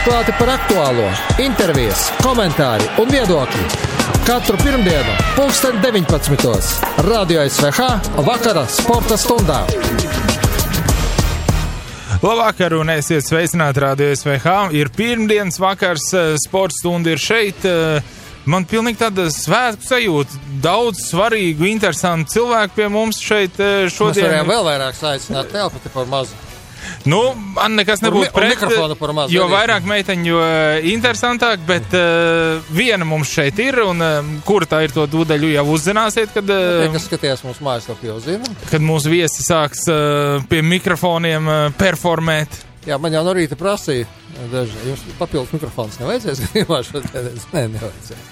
Atklāti par aktuālo, intervijas, komentāri un viedokļi. Katru pirmdienu, 19:00. Radio SVH vakara sporta stundā. Labvakar un esiet sveicināti Radio SVH. Ir pirmdienas vakars, sporta stunda ir šeit. Man pilnīgi tāda svētku sajūta. Daudz svarīgu, interesantu cilvēku pie mums šeit šodien. Mēs varējām vēl vairāk aicināt, telpa te par mazu. Nu, man nekas nebūtu pret, jo vairāk meiteņu, jo interesantāk, bet viena mums šeit ir, un kura tā ir, to tūdaļu jau uzzināsiet, kad... Kas skatījās mūsu mājaslapu jau zina. Kad mūsu viesi sāks pie mikrofoniem performēt. Jā, man jau no rīta prasīja, jums papildus mikrofons nevajadzēs, Nē, nevajadzēs.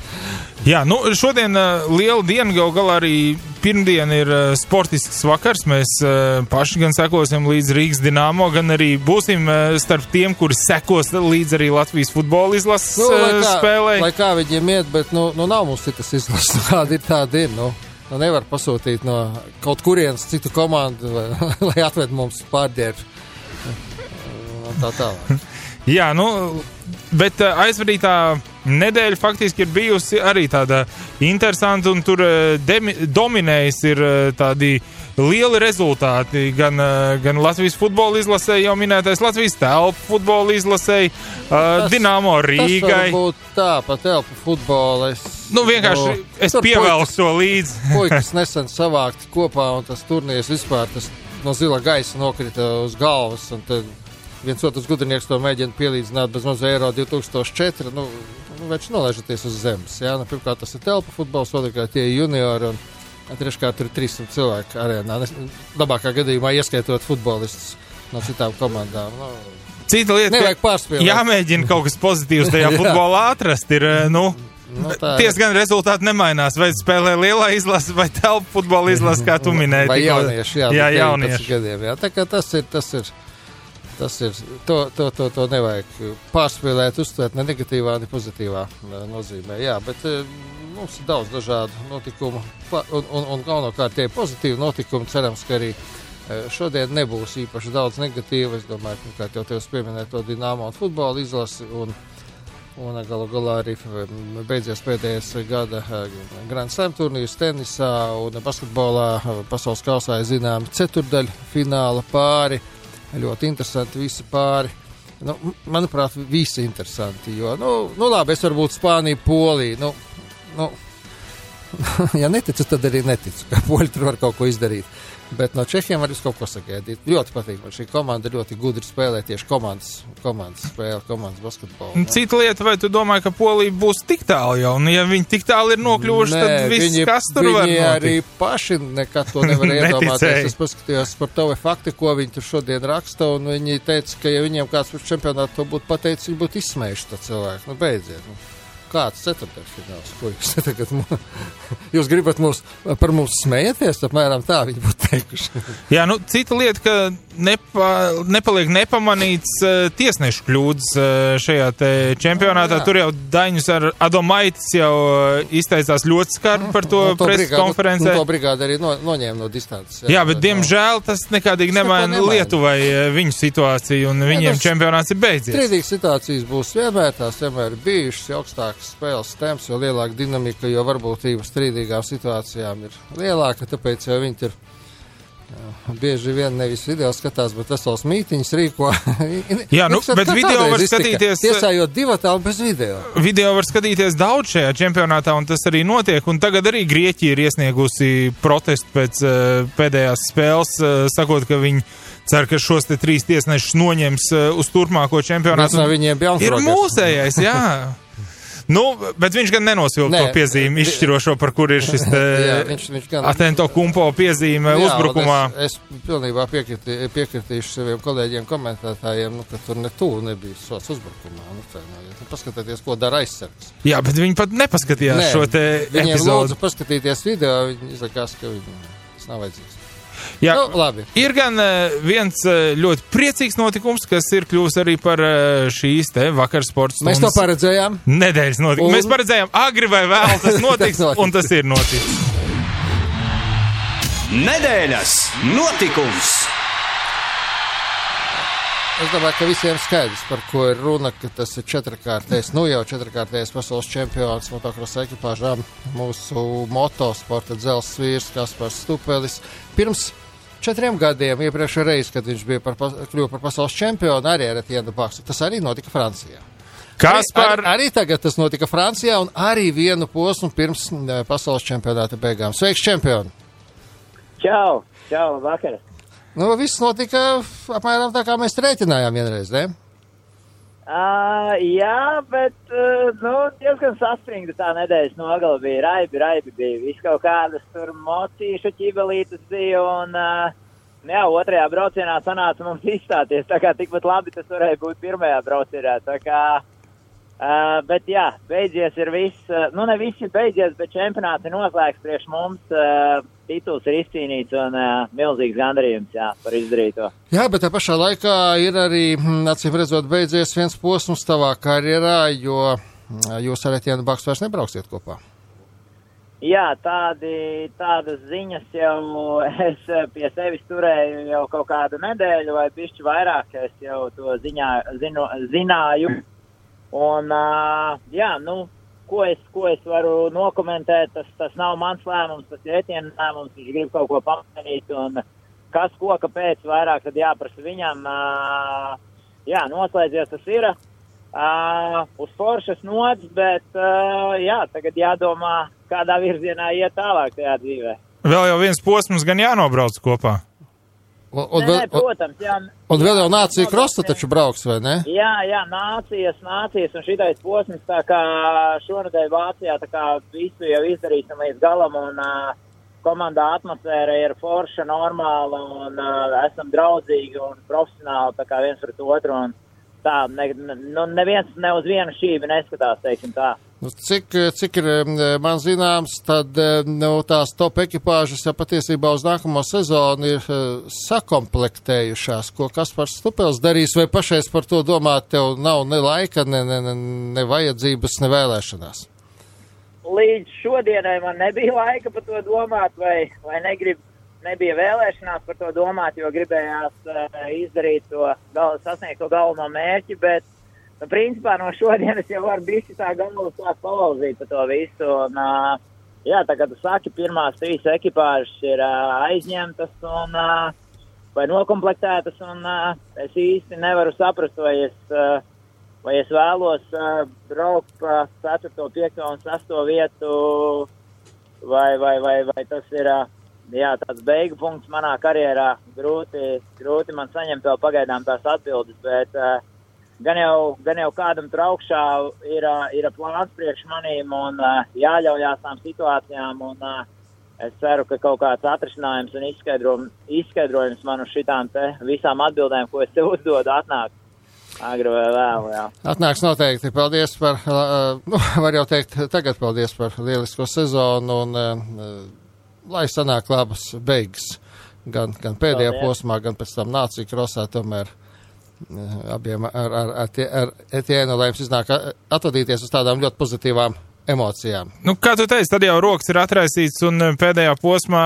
Jā, nu, šodien liela diena, gal galā arī pirmdien ir sportisks vakars. Mēs paši gan sekosim līdz Rīgas Dinamo, gan arī būsim starp tiem, kuri sekos līdz arī Latvijas futbola izlases spēlē. Lai kā viņiem iet, bet nu nav mums citas izlases, kāda ir tāda ir, nu nevar pasūtīt no kaut kurienes citu komandu, lai atved mums pārģēru. Tā tālāk. Jā, nu, bet aizvadītā nedēļa faktiski ir bijusi arī tāda interesanta, un tur dominējis ir tādi lieli rezultāti. Gan Latvijas futbola izlasē, jau minētais Latvijas telpu futbola izlasē, Dinamo Rīgai. Tas varbūt tā, pa telpu futbola. Vienkārši es pievelku to līdzi. Puikas nesen savākti kopā, un tas turnīrs vispār tas no zila gaisa nokrita uz galvas, un tad viens otrs gudrinieks to mēģina pielīdzināt bez maz Eiro 2004, vērš nolaižaties uz zemes, jā, pirmkārt tas ir telpa futbols, otrkārt tie juniori, un treškārt tur 300 cilvēku arēnā, labākā gadījumā ieskaitot futbolistus no citām komandām, Cita lieta, nevajag pārspēlēt. Jāmēģina kaut kas pozitīvs tajā futbolā atrast, ir, ties gan rezultāti nemainās, vai spēlē lielā izlase, vai telpa futbola izlase, kā tu minēji. Vai jaunieši, jā, jaunieši. Gadiem, jā, tā kā tas ir, to nevajag pārspēlēt, uztvert ne negatīvā, ne pozitīvā nozīmē. Jā, bet mums ir daudz dažādu notikumu, un galvenokārt tie pozitīvi notikumi, cerams, ka arī šodien nebūs īpaši daudz negatīvu. Es domāju, ka jau tev pieminēt to Dinamo un futbola izlasi, un galu galā arī beidzies pēdējais gada Grand Slam turnīrs tenisā un basketbolā pasaules kausā ir zināmi ceturdaļu fināla pāri. Ļoti interesanti visi pāri. Manuprāt, visi interesanti, jo, labi, es varbūt Spāniju, Poliju, ja neticu, tad arī neticu, ka Poļi tur var kaut ko izdarīt. Bet no Čehiem var kaut ko sagaidīt. Ļoti patīk, man šī komanda ļoti gudri spēlē tieši komandas spēle, komandas basketbolu. Cita lieta, vai tu domāji, ka Polija būs tik tālu jau? Un ja viņi tik tālu ir nokļuvuši, tad viss, kas tur var notikt? Viņi arī paši nekad to nevar iedomāties. Es paskatījos par TV fakti, ko viņi tur šodien raksta, un viņi teica, ka ja viņiem kāds par čempionātu to būtu pateicis, viņi būtu izsmējuši to cilvēku. Beidziet. Kāds ceturtdaļfināls, puikas? Tagad jūs gribat par mums smējaties, apmēram tā viņi būtu teikuši. Jā, cita lieta, ka nepaliek nepamanīts tiesnešu kļūdas šajā te čempionātā. Tur jau Daņus ar Adomaitis jau izteicās ļoti skarbi par to preses konferencē. To brigādi arī noņēma no distances. Jā, bet diemžēl tas nekādīgi nemaina Lietuvai viņu situāciju, un viņiem čempionāts ir beidzies. Strīdīgas situācijas būs vienmēr, tās vienmēr bijušas, augstāk spēles temps, jo lielāka dinamika, jo varbūtība strīdīgām situācijām ir lielāka, tāpēc jau viņi ir bieži vien nevis video skatās, bet vesels mītiņas rīko. Jā, bet video var skatīties... Tiesājot divatā un bez video. Video var skatīties daudz šajā čempionātā, un tas arī notiek, un tagad arī Grieķija ir iesniegusi protestu pēc pēdējās spēles, sakot, ka viņi cer, ka šos te 3 tiesnešus noņems uz turpmāko čempionātu. Ir mūsējais, jā. Bet viņš gan nenosvilka to piezīmi izšķirošo, par kur ir šis Atento Kumpo piezīme uzbrukumā. Es pilnībā piekritīšu saviem kolēģiem komentētājiem, ka tur nebija sots uzbrukumā. Paskatieties, ko dara aizsargs. Jā, bet viņi pat nepaskatījās šo te epizodu. Viņiem lūdzu paskatīties video, viņi izlikās, ka tas nav vajadzīgs. Jā, labi. Ir gan viens ļoti priecīgs notikums, kas ir kļuvis arī par šīs te vakar sports stundas. Mēs to paredzējām. Nedēļas notikums. Mēs paredzējām agri vai vēl tas notiks, un tas ir noticis. Nedēļas notikums. Es domāju, ka visiem skaidrs, par ko ir runa, ka tas ir četrkārtējs pasaules čempions motokrosa ekipāžām, mūsu motosporta dzelzs vīrs Kaspars Stupelis. Pirms 4 gadiem, iepriekšējā reize, kad viņš bija kļuva par pasaules čempionu, arī ar Etienne Baksu. Tas arī notika Francijā. Arī tagad tas notika Francijā un arī vienu posmu pirms pasaules čempionāta beigām. Sveiks, čempioni! Čau, vakar! Viss notika apmēram tā, kā mēs rēķinājām vienreiz, ne? Jā, bet, diezgan saspringta tā nedēļas nogala bija. Raibi bija. Viss kaut kādas tur mocīšu ķibelītas bija un, otrajā braucienā sanāca mums izstāties. Tā kā tikpat labi tas varēja būt pirmajā braucienā. Tā kā, bet jā, beidzies ir viss, ne viss ir beidzies, bet čempionāts ir noslēgts priekš mums. Tituls ir izcīnīts un milzīgs gandarījums, par izdarīto. Jā, bet tā pašā laikā ir arī, acīm redzot, beidzies viens posms tavā karjerā, jo jūs ar Etienne Baksu vairs nebrauksiet kopā. Jā, tādas ziņas jau es pie sevis turēju jau kaut kādu nedēļu vai bišķi vairāk, es jau to zināju. Un, Ko es varu nokomentēt, tas nav mans lēmums, tas ir Etienne lēmums, viņš grib kaut ko pamainīt, un kas ko, kāpēc vairāk, tad jāprasa viņam, noslēdzies tas ir, uz foršas nots, bet, tagad jādomā, kādā virzienā iet tālāk tajā dzīvē. Vēl jau viens posms gan jānobrauc kopā. Protams, jā. Un vēl jau nācija krosta taču brauks, vai ne? Jā, nācijas, un šitais posms, tā kā šonedēļ Vācijā, tā kā visu jau izdarīsim līdz galam, un komandā atmosfēra ir forša, normāla, un esam draudzīgi un profesionāli, tā kā viens pret otru, un tā, neviens ne uz vienu šībi neskatās, teiksim tā. Cik ir man zināms, tad tās top ekipāžas jau patiesībā uz nākamo sezonu ir sakomplektējušās, ko Kaspars Stupels darīs, vai pašais par to domāt, tev nav ne laika, ne vajadzības, ne vēlēšanās? Līdz šodienai man nebija laika par to domāt, vai nebija vēlēšanās par to domāt, jo gribējās izdarīt sasniegt to galveno mērķi, bet principā no šodienas jau var bišķi tā galvu sāk palauzīt par to visu. Un, tā kā tu saki, pirmās 3 ekipāžas ir aizņemtas un vai nokomplektētas, un es īsti nevaru saprast, vai es vēlos braukt pa 4., 5. un 6. vietu, vai tas ir tāds beigu punkts manā karjerā. Grūti man saņemt vēl pagaidām tās atbildes, bet Gan jau kādam tur augšā ir plāns priekš manīm un jāļaujās tām situācijām, un es ceru, ka kaut kāds atrisinājums un izskaidrojums man uz šitām te visām atbildēm, ko es te uzdodu, atnāk agri vai vēl, jā. Atnāks noteikti. Paldies par, var jau teikt, tagad paldies par lielisko sezonu, un lai sanāk labas beigas, gan pēdējā posmā, gan pēc tam nācija krosā, tomēr abiem ar Etienne, lai jums iznāk atvadīties uz tādām ļoti pozitīvām emocijām. Kā tu teici, tad jau rokas ir atraisīts un pēdējā posmā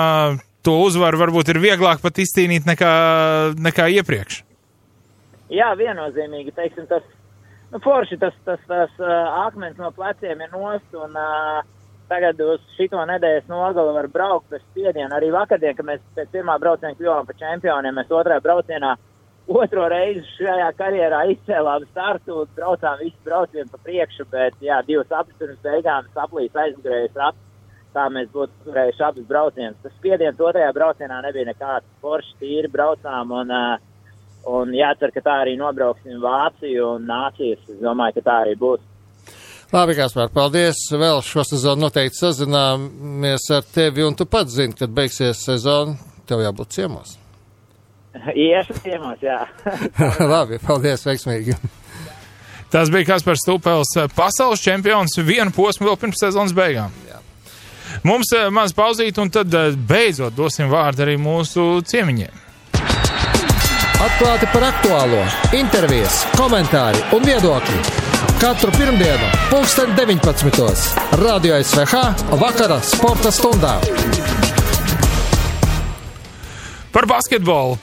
to uzvaru varbūt ir vieglāk pat izcīnīt nekā iepriekš. Jā, viennozīmīgi, teiksim, forši tas akmens no pleciem ir nost, un tagad uz šito nedēļas nogali var braukt bez spiediena. Arī vakardien, kad mēs pēc pirmā brauciena kļuvām par čempioniem, mēs otrajā braucienā otro reizi šajā karjerā izcēlām startu, braucām visu braucienu pa priekšu, bet 2 aplis pirms beigām saplīs aizmugurējais raps, tā mēs būtu turējuši abas braucienus. Tas spiediens otrajā braucienā nebija nekāds, forši tīri braucām, un jācer, ka tā arī nobrauksim Vāciju un nācijas, es domāju, ka tā arī būs. Labi, Kaspar, paldies, vēl šo sezonu noteikti sazināmies ar tevi, un tu pats zini, kad beigsies sezona, tev jābūt ciemos. Iešu ciemos, jā. Labi, paldies, veiksmīgi. Tas bija Kaspars Stupels, pasaules čempions, vienu posmu vēl pirms sezonas beigām. Jā. Mums maz pauzīt, un tad beidzot dosim vārdu arī mūsu ciemiņiem. Atklāti par aktuālo, intervijas, komentāri un viedokļi. Katru pirmdienu, 19:00, Radio SVH, vakara sporta stundā. Par basketbolu,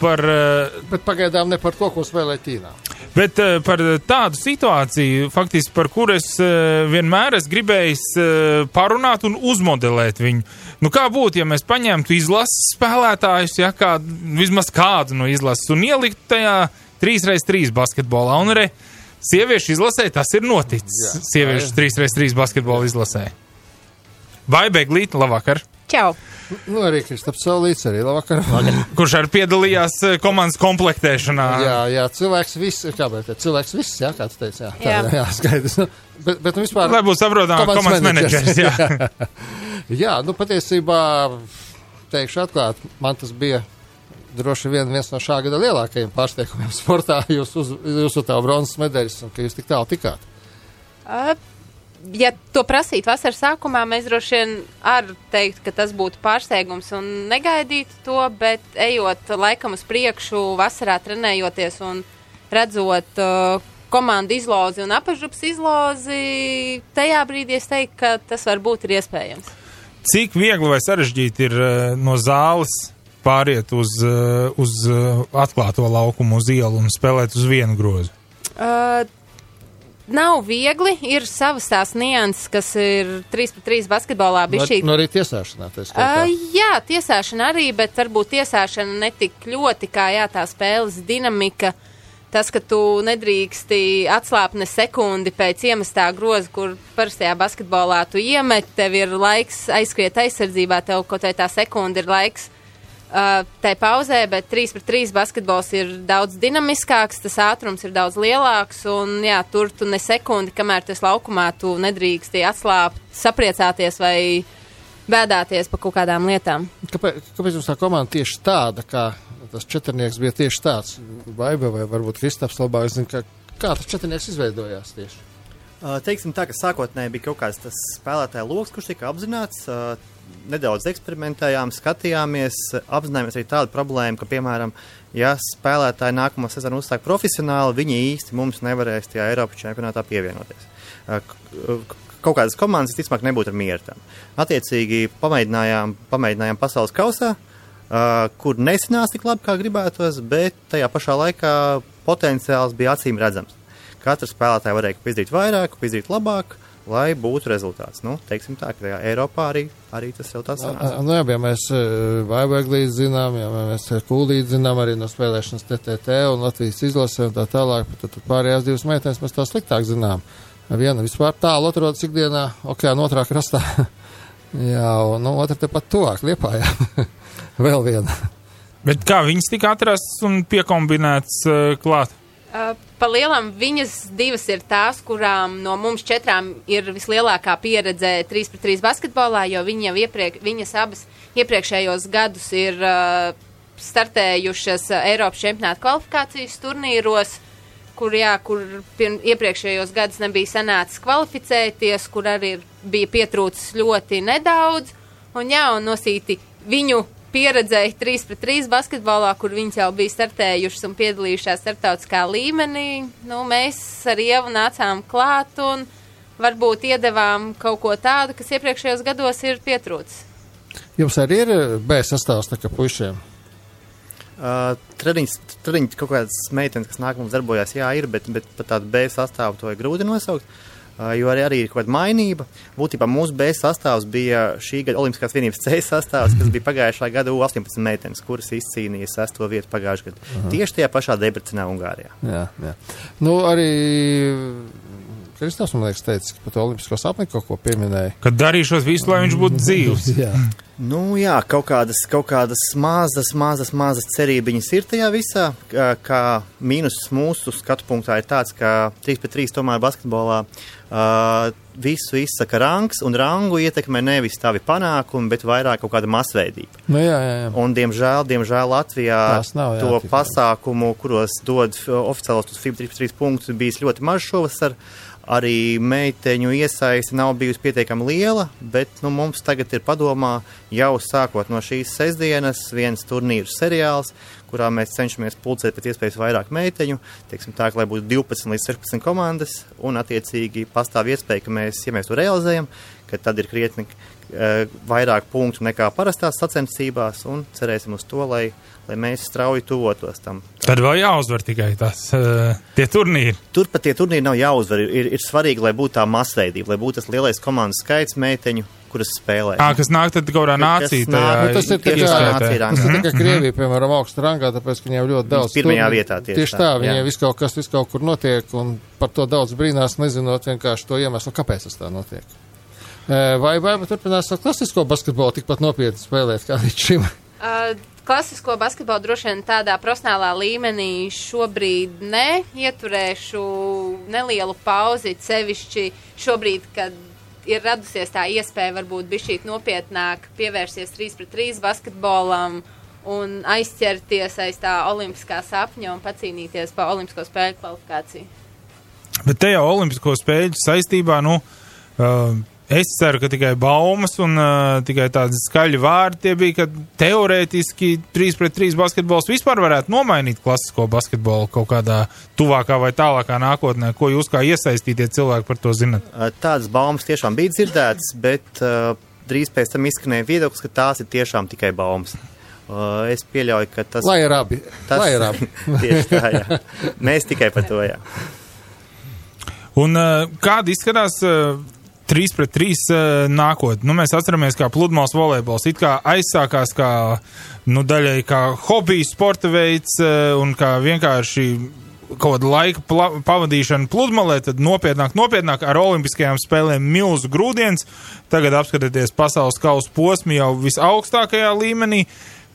Bet pagaidām ne par to, ko spēlē Ķīnā. Bet par tādu situāciju, faktiski par kuru es vienmēr esmu gribējis parunāt un uzmodelēt viņu. Nu, kā būtu, ja mēs paņemtu izlases spēlētājus, ja, vismaz kādu no izlases, un ieliktu tajā 3x3 basketbolā, un arī sieviešu izlasē tas ir noticis. Sieviešu 3x3 basketbola izlasē. Vai Beglīte, labvakar! Čau! Nu, arī Kristaps Saulīts, arī labvakar. Kurš arī piedalījās komandas komplektēšanā. Jā, cilvēks viss, jā, kā tu teici, jā, skaidrs. Bet vispār... Lai būtu saprotām, komandas menedžers, jā. Jā, nu, patiesībā, teikšu atklāt, man tas bija droši vien viens no šā gada lielākajiem pārsteigumiem sportā, jūs tā bronzas medaļas, un ka jūs tik tālu tikāt. Ja to prasīt vasaras sākumā, mēs droši vien ar teikt, ka tas būtu pārsteigums un negaidīt to, bet ejot laikam uz priekšu, vasarā trenējoties un redzot komandu izlozi un apažups izlozi, tajā brīdī es teiktu, ka tas varbūt ir iespējams. Cik viegli vai sarežģīti ir no zāles pāriet uz atklāto laukumu, uz ielu un spēlēt uz vienu grozu? Nav viegli, ir savas tās nianses, kas ir 3x3 basketbolā bišķīt. No arī tiesāšanā, jā, tiesāšana arī, bet varbūt tiesāšana netik ļoti kā tā spēles dinamika. Tas, ka tu nedrīksti atslāpt ne sekundi pēc iemestā groza, kur parastajā basketbolā tu iemet, tev ir laiks aizskriet aizsardzībā, tev kaut vai tā sekunda ir laiks tai pauzē, bet 3x3 basketbols ir daudz dinamiskāks, tas ātrums ir daudz lielāks, un jā, tur tu ne sekundi, kamēr tu esi laukumā, tu nedrīksti atslāpt, sapriecāties vai bēdāties par kaut kādām lietām. Kāpēc jums tā komanda tieši tāda, kā tas četrnieks bija tieši tāds? Baiba vai varbūt Kristaps labāk zina, kā tas četrnieks izveidojās tieši? Teiksim tā, ka sākotnēji bija kaut kāds tas spēlētāja loks, kurš tika apzināts, nedaudz eksperimentējām, skatījāmies, apzinājāmies arī tādu problēmu, ka, piemēram, ja spēlētāji nākamo sezonu uzsāk profesionāli, viņi īsti mums nevarēs tajā Eiropas čempionātā pievienoties. Kaut kādas komandas, ticamāk, nebūtu ar mieru tam. Attiecīgi, pamēģinājām pasaules kausā, kur nesanāca tik labi, kā gribētos, bet tajā pašā laikā potenciāls bija acīm redzams. Katrs spēlētāji varēja izdarīt vairāk, izdarīt labāk, lai būtu rezultāts. Nu, teiksim tā, ka Eiropā arī tas jau tāds sanāca. Nu jā, ja mēs Vaibeglīti zinām, ja mēs Kūlīti zinām arī no spēlēšanas TTT un Latvijas izlasē un tā tālāk, tad pārējās divas meitenes mēs tā sliktāk zinām. Viena vispār tālu atrodas ikdienā okeāna otrā krastā. Jā, un otra tepat tuvāk Liepājā. Vēl viena. Bet kā viņas tika atrasts un piekombinēts klāt? Pa lielam viņas divas ir tās, kurām no mums četrām ir vislielākā pieredze 3x3 basketbolā, jo viņas abas iepriekšējos gadus ir startējušas Eiropas čempionāta kvalifikācijas turnīros, kur iepriekšējos gadus nebija sanācis kvalificēties, kur arī bija pietrūcis ļoti nedaudz, un nosīti viņu pieredzēja 3x3 basketbolā, kur viņas jau bija startējušas un piedalījušās starptautiskā līmenī. Nu, mēs ar Ievu nācām klāt un varbūt iedevām kaut ko tādu, kas iepriekšējos gados ir pietrūcis. Jums arī ir B sastāvs tā kā puišiem? Treniņš kaut kādas meitenes, kas nāk mums darbojās, jā, ir, bet pat tādu B sastāvu to ir grūti nosaukt. Jo arī ir kaut kāda mainība. Būtībā mūsu B sastāvs bija šī gada Olimpiskās vienības C sastāvs, kas bija pagājušā gada U18 meitenes, kuras izcīnīja 6. vietu pagājušajā gadā. Tieši tajā pašā Debrecenā, Ungārijā. Jā. Nu, arī Kristaps, man liekas, teica, ka pat Olimpisko sapni kaut ko pieminēja. Kad darīšos visu, lai viņš būtu dzīvs. Jā. Nu jā, kaut kādas mazas cerībiņas ir tajā visā, kā mīnus mūsu skatu punktā ir tāds, ka 3x3 tomēr basketbolā visu izsaka rangs, un rangu ietekmē nevis tavi panākumi, bet vairāk kaut kāda masveidība. Nu jā. Un diemžēl Latvijā to pasākumu, kuros dod oficiālos FIBA 3x3 punktus, bijis ļoti maz šovasar. Arī meiteņu iesaisti nav bijusi pietiekami liela, bet mums tagad ir padomā jau sākot no šīs sestdienas viens turnīru seriāls, kurā mēs cenšamies pulcēt pēc iespējas vairāk meiteņu, teiksim tā, lai būtu 12 līdz 16 komandas, un attiecīgi pastāv iespēja, ka ja mēs to realizējam, ka tad ir krietni vairāk punktu nekā parastās sacensībās, un cerēsim uz to, lai mēs strauji tuvotos tam. Tad vēl jāuzvar tikai tie turnīri. Turpat tie turnīri nav jāuzvar. Ir svarīgi, lai būtu tā masveidība, lai būtu tas lielais komandas skaits meiteņu, kuras spēlē. Kas nāk tad kaut kādā nācija. Tas ir tikai Krievija, piemēram, augsta rangā, tāpēc, ka viņiem ļoti daudz pirmajā vietā tieši tā. Viņiem viss kaut kur notiek, un par to daudz brīnās, nezinot vienkārši to iemeslu, kāpēc tas tā notiek. Vai turpinās ar klasisko basketbolu tikpat nopietni spēlēt kā līdz šim? Klasisko basketbolu droši vien tādā profesionālā līmenī šobrīd ieturēšu nelielu pauzi, sevišķi šobrīd, kad ir radusies tā iespēja varbūt bišķīt nopietnāk pievērsties 3-3 basketbolam un aizķerties aiz tā olimpiskā sapņa un pacīnīties pa olimpisko spēļu kvalifikāciju. Bet te jau olimpisko spēļu saistībā, es ceru, ka tikai baumas un tikai tādi skaļi vārdi tie bija, ka teorētiski 3-3 basketbols vispār varētu nomainīt klasisko basketbolu kaut kādā tuvākā vai tālākā nākotnē. Ko jūs kā iesaistītie cilvēki par to zinat? Tādas baumas tiešām bija dzirdētas, bet drīz pēc tam izskanēja viedoklis, ka tās ir tiešām tikai baumas. Es pieļauju, ka tas... Lai ir abi. Tieši tā, jā. Mēs tikai par to, jā. Un kāda izskatās... 3-3 nākotnē. Mēs atceramies, kā pludmales volejbols. It kā aizsākās kā, daļai kā hobija sporta veids un kā vienkārši kaut kāda laika pavadīšana pludmalē, tad nopietnāk ar olimpiskajām spēlēm milzu grūdienis. Tagad apskatieties pasaules kausa posmi jau visaugstākajā līmenī.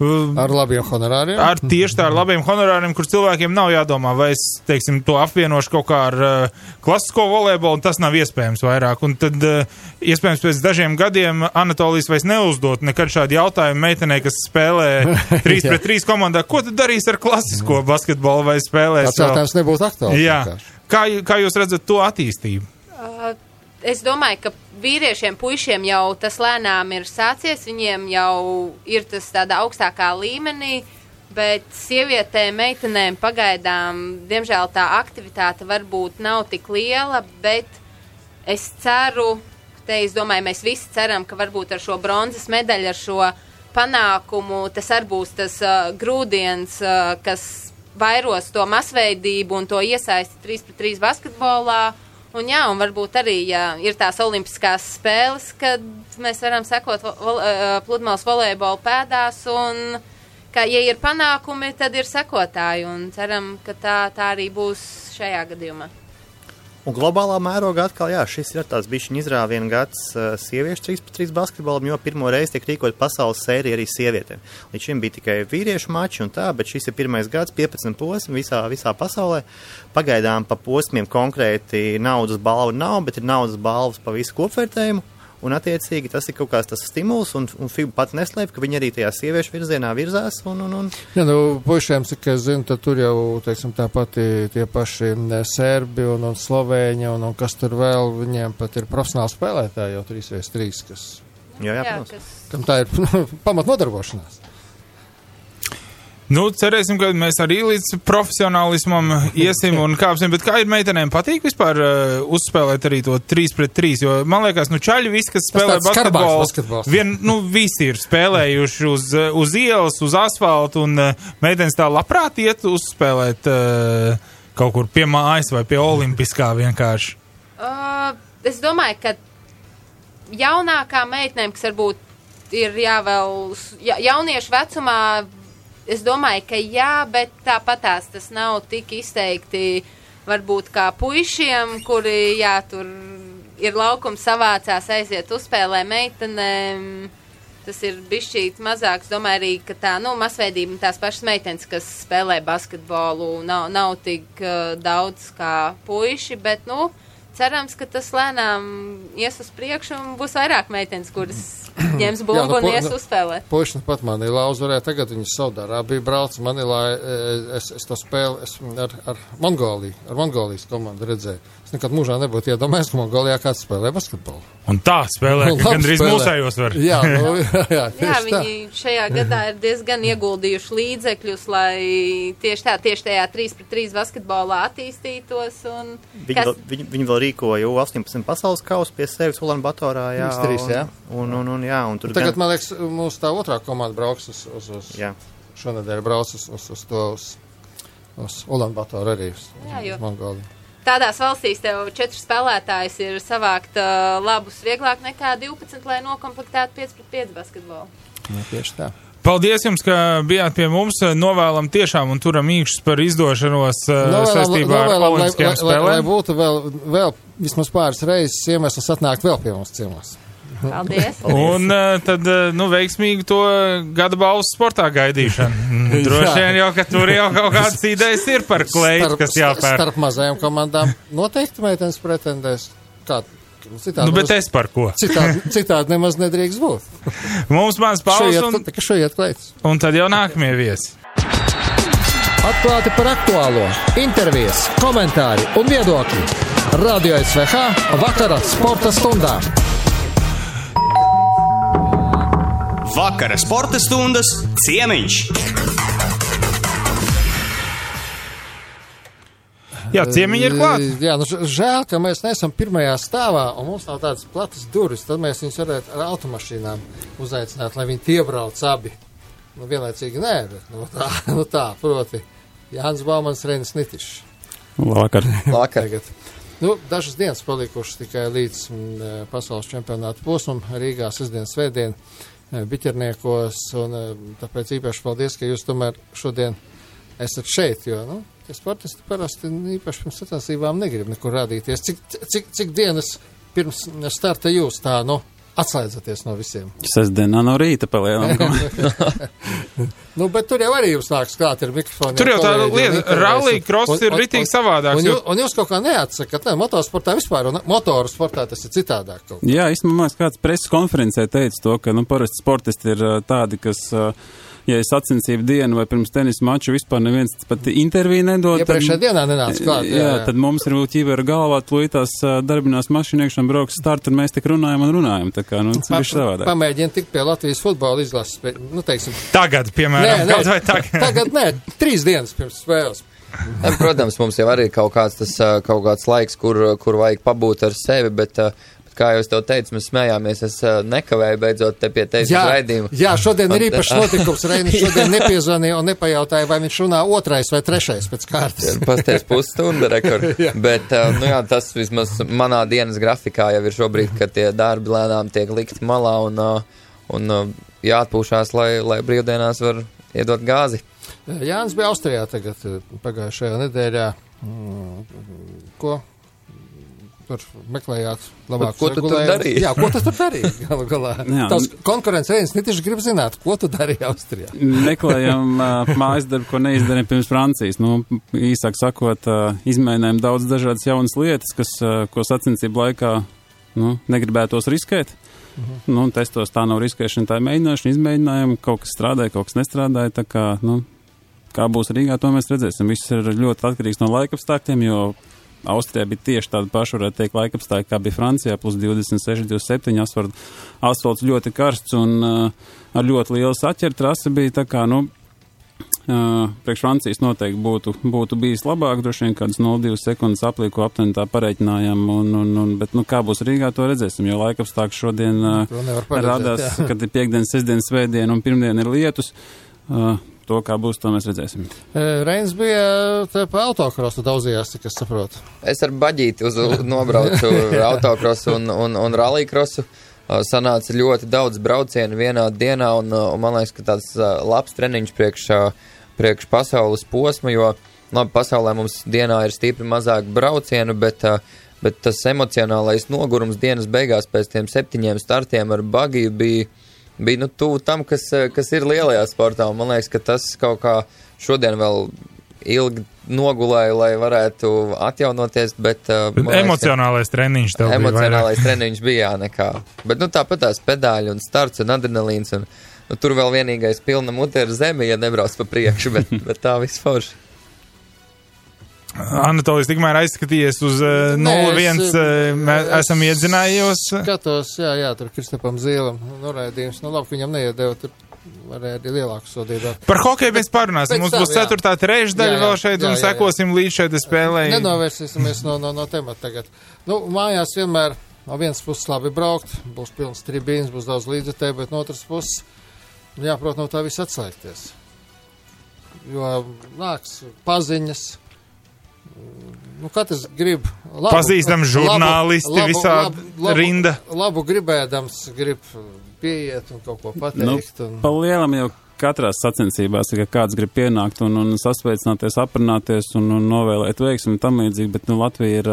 Ar labiem honorāriem? Tieši tā, ar labiem honorāriem, kur cilvēkiem nav jādomā, vai es, to apvienošu kaut kā ar klasisko volejbolu, un tas nav iespējams vairāk. Un tad, iespējams, pēc dažiem gadiem Anatolijas vairs neuzdot nekad šādu jautājumu meitenei, kas spēlē 3-3 komandā. Ko tad darīs ar klasisko basketbolu vai spēlēs? Tas jautājums nebūtu aktuāls. Jā. Kā jūs redzat to attīstību? Es domāju, ka vīriešiem, puišiem jau tas lēnām ir sācies, viņiem jau ir tas tādā augstākā līmenī, bet sievietēm, meitenēm pagaidām, diemžēl tā aktivitāte varbūt nav tik liela, bet es ceru, es domāju, mēs visi ceram, ka varbūt ar šo bronzas medaļu, ar šo panākumu, tas arī būs tas grūdienis, kas vairos to masveidību un to iesaisti 3-3 basketbolā. Un varbūt arī, ja ir tās olimpiskās spēles, kad mēs varam sekot pludmales volejbola pēdās, un, ka, ja ir panākumi, tad ir sekotāji, un ceram, ka tā arī būs šajā gadījumā. Un globālā mērogā atkal, šis ir tāds bišķiņ izrāviena gads sieviešu 3-3 basketbolam, jo pirmo reizi tiek rīkot pasaules sērija arī sievietēm. Līdz šim bija tikai vīriešu mači un tā, bet šis ir pirmais gads, 15 posmi visā pasaulē. Pagaidām pa posmiem konkrēti naudas balva nav, bet ir naudas balvas pa visu kopvērtējumu. Un, attiecīgi, tas ir kaut kāds tas stimuls, un FIBA pat neslēp, ka viņi arī tajā sieviešu virzienā virzās. Jā, puišiem, cik es zinu, tad tur jau, tāpat tie paši serbi un slovēņi, un kas tur vēl, viņiem pat ir profesionāli spēlētāji jau 3-3, kas... Jā, protams. Kam tā ir pamatnodarbošanās. Cerēsim, ka mēs arī līdz profesionālismam iesim un kāpsim, bet kā ir meitenēm patīk vispār uzspēlēt arī to 3-3, jo man liekas, čaļi visi, kas spēlē basketbolu, visi ir spēlējuši uz ielas, uz asfaltu, un meitenes tā labprāt iet uzspēlēt kaut kur pie mājas vai pie olimpiskā vienkārši. Es domāju, ka jaunākā meitenēm, kas varbūt ir jauniešu vecumā, es domāju, ka bet tāpatās tas nav tik izteikti varbūt kā puišiem, kuri, tur ir laukums savācās, aiziet uzspēlē meitenēm. Tas ir bišķīt mazāks. Domāju arī, ka tā, masveidība tās pašas meitenes, kas spēlē basketbolu, nav tik daudz kā puiši, bet, cerams, ka tas lēnām ies uz priekšu un būs vairāk meitenes, kuras ņems bumbu un ies uzspēlēt. Puiši pat Manilā uzvarēja, tagad viņi Saudārābiju brauc. Manilā es to spēlu ar Mongolijas komandu redzēju. Es nekad mūžā nebūtu iedomājies, ka Mongolijā kāds spēlē basketbolu. Un tā spēlē, ka gandrīz mūsējos var. Jā, viņi šajā gadā ir diezgan ieguldījuši līdzekļus, lai tieši tajā 3-3 basketbolā attīstītos. Un viņi vēl rīkoja U18 pasaules kausu pie sevis Ulanbatorā, jā. X3, jā. Un tur tagad, man liekas, mūsu tā otrā komanda brauks uz šonedēļ brauc uz Ulanbatoru arī, uz Mongoliju. Tādās valstīs tev 4 spēlētājs ir savākt labus vieglāk nekā 12, lai nokomplektētu 5-5 basketbolu. Jā, tieši tā. Paldies jums, ka bijāt pie mums. Novēlam tiešām un turam īkšķus par izdošanos saistībā ar olimpiskajām spēlēm. Lai būtu vēl vismaz pāris reizes iemesls atnākt vēl pie mums ciemos. Paldies. Un tad, veiksmīgi to gada balvas sportā gaidīšanu. Droši vien jau, ka tur jau kaut kādas idejas ir par kleitu, kas jāpēr. Starp mazajām komandām noteikti meitenes pretendēs. Citādi bet es par ko? Citādi nemaz nedrīkst būt. Mums mans pauzes šoiet kleitas. Un tad jau nākamie viesi. Atklāti par aktuālo. Intervijas, komentāri un viedokļi. Radio SVH vakara sporta stundā. Vakara sporta stundas ciemiņš. Jā, ciemiņi ir klāt. Jā, žēl, ka mēs neesam pirmajā stāvā un mums nav tādas platas durvis. Tad mēs viņus varētu ar automašīnām uzaicināt, lai viņi iebrauc abi. Vienlaicīgi nē, bet tā, proti. Jānis Baumans, Reinis Nitišs. Vakar. Tagad. Dažas dienas palikušas tikai līdz pasaules čempionāta posmam Rīgā, sestdien, svētdien, Biķerniekos, un tāpēc īpaši paldies, ka jūs tomēr šodien esat šeit, jo, tie sportisti parasti īpaši pirms sacensībām negrib nekur rādīties. Cik dienas pirms starta jūs tā, atslēdzaties no visiem? Sestdienā no rīta palielam. Bet tur jau arī jums nāks klāt ar mikrofonu. Tur jau tā lieta, rallija cross ir ritīgi savādāks. Un jūs kaut kā neatsakat, motorsportā vispār, un motoru sportā tas ir citādāk. Jā, īstenībā kāds preses konferencē teica to, ka, parasti sportisti ir tādi, kas, ja ir sacensību diena vai pirms tenisa maču, vispār neviens pat interviju nedod. Iepriekšējā dienā nenāc klāt. Jā, tad mums ir ķīvera galvā, tūlītās darbinās mašīnu iekšana brauks start, un mēs tik runājam. Tā kā, tas ir savādāk. Pamēģini tikt pie Latvijas futbola izlases, teiksim. Tagad, piemēram, kaut vai tagad. Tagad nē, 3 dienas pirms spēles. Protams, mums jau arī ir kaut kāds laiks, kur vajag pabūt ar sevi, bet kā jau es tev teicu, mēs smējāmies, es nekavēju beidzot te pie tevis raidījumu. Jā, šodien ir īpašs notikums. Reinis šodien nepiezvanīja un nepajautāja, vai viņš runā 2. vai 3. pēc kārtas. Pasties pusstunda rekords. Bet, tas vismaz manā dienas grafikā jau ir šobrīd, ka tie darbi lēnām tiek likti malā un jāatpūšās, lai brīvdienās var iedot gāzi. Jānis bija Austrijā tagad pagājušajā nedēļā. Ko? Tur meklējāt labākus ko tu tur darīji? Jā, ko tu tur darīji? Galā. Tavs konkurents Reinis Nitišs grib zināt, ko tu darīji Austrijā? Meklējam mājas darbu, ko neizdarīja pirms Francijas. Īsāk sakot, izmēģinājām daudz dažādas jaunas lietas, ko sacensību laikā negribētos riskēt. Testos tā nav riskēšana, tā ir mēģināšana, izmēģinājumi, kaut kas strādāja, kaut kas nestrādāja, tā kā, kā būs Rīgā, to mēs redzēsim. Viss ir ļoti atkarīgs no laikapstākļiem, jo Austrijā bija tieši tāda paša, varētu teikt, laikapstākļi, kā bija Francijā, plus 26, 27, asfalts ļoti karsts un ar ļoti lielu saķeru trasi bija, tā kā, priekš Francijas noteikti būtu bijis labāk, droši vien kādas 0,2 sekundes aplīko aptuveni tā pareiķinājām, bet, kā būs Rīgā, to redzēsim, jo laikapstākļi šodien rādās, kad ir piekdien, sestdien, svētdien un pirmdien ir lietus. To, kā būs, to mēs redzēsim. Reinis bija pa autokrosu daudzījās, cik es saprotu. Es ar baģīti nobraucu autokrosu un rallycrossu. Sanāca ļoti daudz braucienu vienā dienā, un man liekas, ka tāds labs treniņš priekš pasaules posma, jo, pasaulē mums dienā ir stipri mazāk braucienu, bet tas emocionālais nogurums dienas beigās pēc tiem 7 startiem ar bagiju bija tuvu tam, kas ir lielajā sportā, un man liekas, ka tas kaut kā šodien vēl ilgi nogulēju, lai varētu atjaunoties, bet emocionālais treniņš tev bija vairāk. Emocionālais treniņš bija, nekā. Bet, tāpat tās pedāļi un starts un adrenalīns, un tur vēl vienīgais pilna mute ir zemi, ja nebrauc pa priekšu, bet tā viss forši. Anatolijs tikmēr aizskatījies uz 0-1, esam iedzinājos. Skatos, jā, tur Kristapam Zīlam noraidījums, labi, ka viņam neiedeva tur varēja arī lielāku sodību. Par hokeju mēs parunāsim. Mums būs 4. trešdaļa vēl šeit un sekosim līdz šeit spēlē. Nenovērsīsimies no temata tagad. Nu, mājās vienmēr no vienas puses labi braukt, būs pilns tribīns, būs daudz līdzekļu, bet no otras puses jāprot no tā viss atslēgties. Jo nāks paziņas, katrs grib pazīstam žurnālisti visā rinda. Labu gribēdams, grib pieiet un kaut ko pateikt. Pa lielam jau katrās sacensībās, ka kāds grib pienākt un sasveicināties, aprunāties un novēlēt veiksmi un tam līdzīgi, bet Latvija ir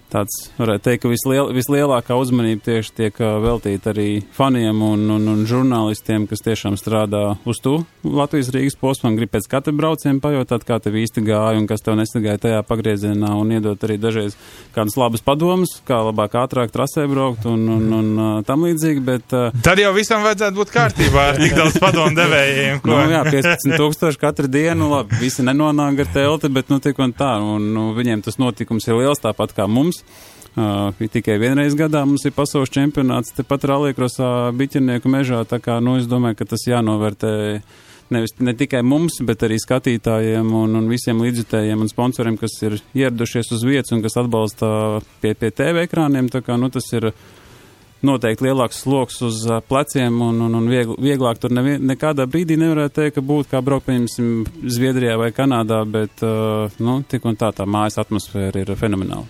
tāds, varētu teikt, ka vislielākā uzmanība tieši tiek veltīta arī faniem un žurnālistiem, kas tiešām strādā uz to Latvijas Rīgas posmu un grib pēc katra brauciena pajautāt, kā tev īsti gāja un kas tev nesagāja tajā pagriezienā un iedot arī dažreiz kādus labus padomus, kā labāk ātrāk trasē braukt un tam līdzīgi, bet... Tad jau visam vajadzētu būt kārtībā ar tik daudz padomu devējiem. Ko? Jā, 15,000 katru dienu, labi, visi nenonāk ar telti, bet tik un tā, un viņiem tas notikums ir liels, tāpat kā mums. Tikai vienreiz gadā mums ir pasaules čempionāts tepat rallycrossā Biķernieku mežā, tā kā, es domāju, ka tas jānovērtē ne tikai mums, bet arī skatītājiem un visiem līdzjutējiem un sponsoriem, kas ir ieradušies uz vietas un kas atbalsta pie TV ekrāniem, tā kā, tas ir noteikti lielāks sloks uz pleciem un vieglāk tur nekādā brīdī nevarētu teikt, ka būtu kā braukt, pieņemsim, Zviedrijā vai Kanādā, bet, tik un tā mājas atmosfēra ir fenomenāla.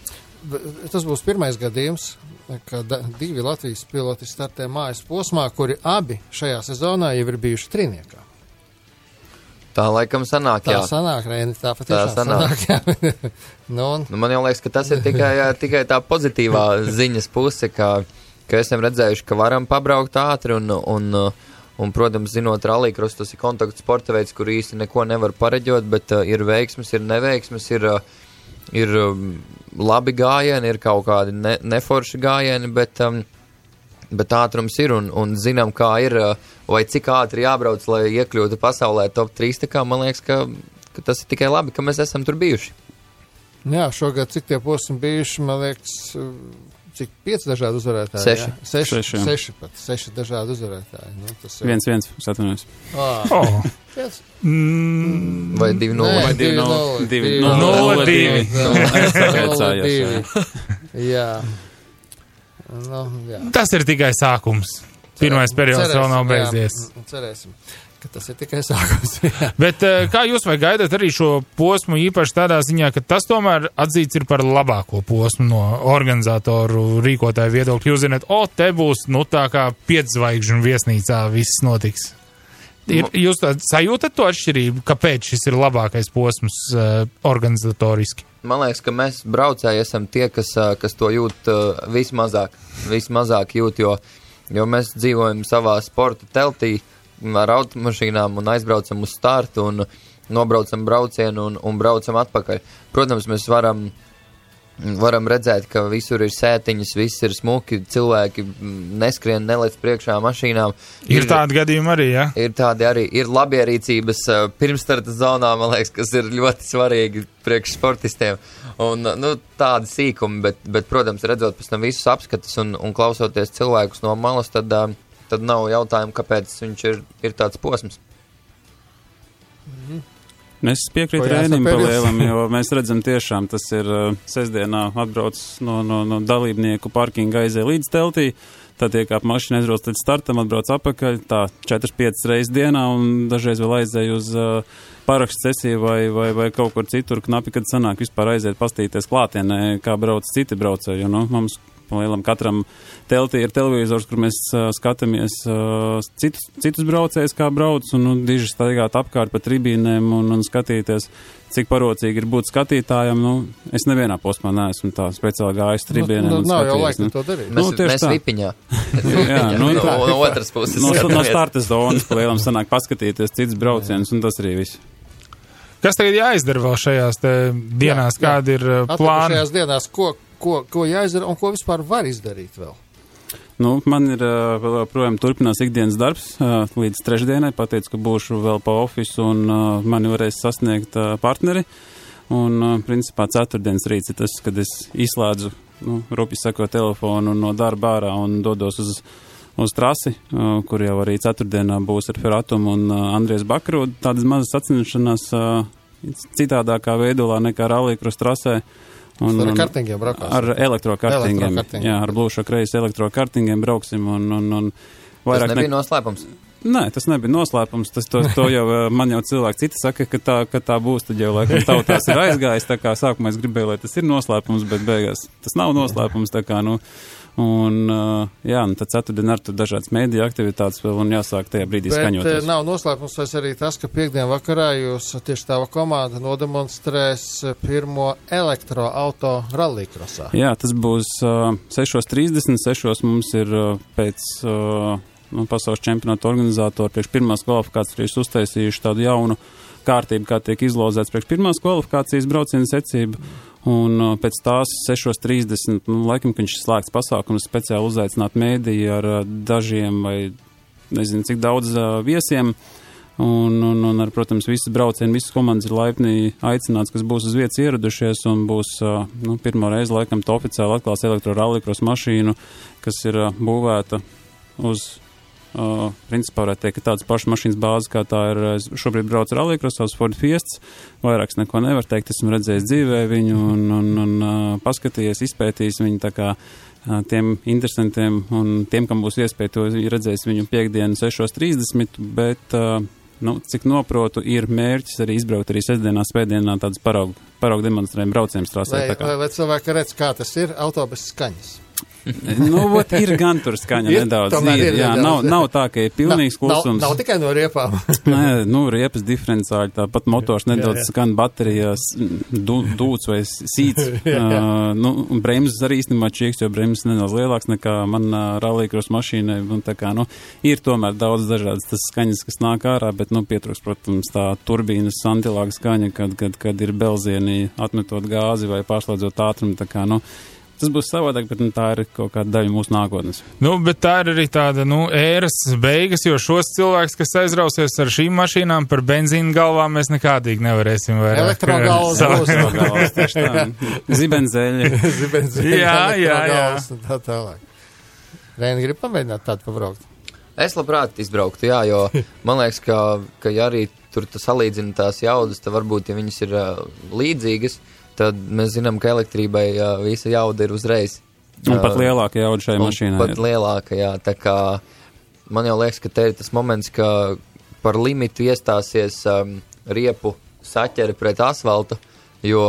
Tas būs pirmais gadījums, kad 2 Latvijas piloti startē mājas posmā, kuri abi šajā sezonā jau ir bijuši trīniekā. Tā laikam sanāk, jā. Tā sanāk, Reini, tā patiešām sanāk, jā. Man jau liekas, ka tas ir tikai tā pozitīvā ziņas puse, ka esam redzējuši, ka varam pabraukt ātri un protams, zinot rallycross, tas ir kontaktu sporta veids, kur īsti neko nevar pareģot, bet ir veiksmes, ir neveiksmes, ir labi gājieni, ir kaut kādi neforši gājieni, bet ātrums ir un zinām, kā ir, vai cik ātri jābrauc, lai iekļūtu pasaulē top 3, tā kā man liekas, ka tas ir tikai labi, ka mēs esam tur bijuši. Jā, šogad cik tie posmi bijuši, man liekas, cik 5 dažādi uzvarētāji? 6 dažādi uzvarētāji. 1-1, atvainojos. Vai 2-0? Vai 2-0. 0-2. Jā. Tas ir tikai sākums. Pirmais periods vēl nav beidzies. Cerēsim, ka tas ir tikai sākums. Bet kā jūs vai gaidat arī šo posmu īpaši tādā ziņā, ka tas tomēr atzīts ir par labāko posmu no organizatoru rīkotāju viedokļa? Jūs zināt, te būs, tā kā 5 zvaigžņu viesnīcā viss notiks. Jūs sajūtat to atšķirību, kāpēc šis ir labākais posms organizatoriski? Man liekas, ka mēs braucēji esam tie, kas to jūt vismazāk jūt, jo mēs dzīvojam savā sporta teltī ar automašīnām un aizbraucam uz startu un nobraucam braucienu un braucam atpakaļ. Protams, mēs varam redzēt, ka visur ir sētiņas, viss ir smuki, cilvēki neskrien, nelec priekšā mašīnām. Ir tādi gadījumi arī, ja? Ir tādi arī, ir labierīcības pirmstarta zonā, man liekas, kas ir ļoti svarīgi priekš sportistiem. Un, tādi sīkumi, bet, protams, redzot pēc tam visus apskatus un klausoties cilvēkus no malas, tad nav jautājumu, kāpēc viņš ir tāds posms. Es piekrītu Rēnim pa lielam, jo mēs redzam tiešām, tas ir sestdienā atbrauc no dalībnieku parkinga aizē līdz teltī, tad iekāp mašīna aizbrauc līdz startam, atbrauc apakaļ, tā 4-5 reizes dienā un dažreiz vēl aizēj uz parakstu sesiju vai kaut kur citur knapi, kad sanāk vispār aiziet pastīties klātienē, kā brauc citi braucēji, mums lielam katram teltī ir televizors, kur mēs skatāmies citus braucējus, kā brauc, un diži staigāt apkārt pa tribīnēm un skatīties, cik parocīgi ir būt skatītājam. Es nevienā posmā neesmu tā speciāli gājis tribīnēm. Nav jau laika to darīt. Mēs vipiņā. Jā, no otras puses. No starta zonas pa lielam sanāk paskatīties cits braucienus, un tas arī viss. Kas tagad jāizdara vēl šajās dienās? Kādi ir plāni? Šajās dienās, ko jāizdara un ko vispār var izdarīt vēl? Man ir vēl projām turpinās ikdienas darbs līdz trešdienai. Pateicu, ka būšu vēl pa ofisu un mani varēs sasniegt partneri. Un principā ceturtdienas rīts ir tas, kad es izslēdzu, rupi sakot, telefonu no darba ārā un dodos uz trasi, kur jau arī ceturtdienā būs ar Feratumu un Andries Bakaru. Tādas mazas sacensšanās citādākā veidolā nekā rallycross trasē. Ar kartingiem braukās? Ar elektrokartingiem. Jā, ar Blūšo kreis elektrokartingiem brauksim. Tas nebija noslēpums? Nē, tas nebija noslēpums. To jau man jau cilvēki citi saka, ka tā būs. Tad jau laikam tautās ir aizgājis. Tā kā sākumā es gribēju, lai tas ir noslēpums, bet beigās tas nav noslēpums. Tā kā, tad ceturtdien ar tur dažādas mēdīja aktivitātes vēl un jāsāk tajā brīdī skaņoties. Bet nav noslēpums arī tas, ka piekdien vakarā jūs tieši tava komanda nodemonstrēs pirmo elektroauto rallycrossā. Jā, tas būs 6:30. 6:00 mums ir pēc pasaules čempionāta organizatori priekš pirmās kvalifikācijas uztaisījuši tādu jaunu kārtību, kā tiek izlozēts priekš pirmās kvalifikācijas brauciena secība. Un pēc tās 6:30, laikam, ka viņš slēgts pasākums, speciāli uzaicināt mēdīju ar dažiem vai nezinu cik daudz viesiem. Un ar, protams, visas braucieni, visas komandas ir laipni aicināts, kas būs uz vietas ieradušies un būs pirmo reizi laikam to oficiāli atklās elektrorallycross mašīnu, kas ir būvēta uz principā varētu teikt, ka tādas pašas mašīnas bāzes, kā tā ir šobrīd brauc rallycrossā uz Ford Fiestas, vairāks neko nevar teikt, esmu redzējis dzīvē viņu un paskatījies, izpētījis viņu, tā kā tiem interesantiem un tiem, kam būs iespēja to redzēs viņu piekdienu 6:30, bet, cik noprotu, ir mērķis arī izbraukt arī sestdienā, svētdienā tādas paraugu demonstrējumu braucieniem trasē. Vai cilvēki redz, kā tas ir, autobus skaņas? Ir gan tur skaņa nedaudz. Nav tā, ka ir pilnīgs klusums. Nav tikai no riepām. Nē, riepas diferenciāli, tāpat motors nedaudz skan baterijās, dūts vai sīts. Bremzes arī īstenībā čieks, jo bremzes nedaudz lielāks nekā man rallycross mašīnai. Ir tomēr daudz dažādas tas skaņas, kas nāk ārā, bet pietrūks, protams, tā turbīnas santilāga skaņa, kad ir belzieni atmetot gāzi vai pārslēdzot ātrumu. Tā kā, tas būs savādāk, bet tā ir kaut kāda daļa mūsu nākotnes. Bet tā ir arī tāda, ēras beigas, jo šos cilvēkus, kas aizrausies ar šīm mašīnām par benzīnu galvām, mēs nekādīgi nevarēsim vairāk. Elektrogalvas, tieši tā. Zibenzeļi. Jā. Tā tālāk. Reini, grib pamēģināt tādu pabraukt? Es labprāt izbrauktu, jā, jo man liekas, ka ja arī tur salīdzina tās jaudas, tad varbūt, ja viņas ir līdzīgas, tad mēs zinām, ka elektrībai visa jauda ir uzreiz. Un pat lielāka jauda šai mašīnai. Pat lielāka, jā. Tā kā man jau liekas, ka te ir tas moments, ka par limitu iestāsies riepu saķeri pret asfaltu, jo,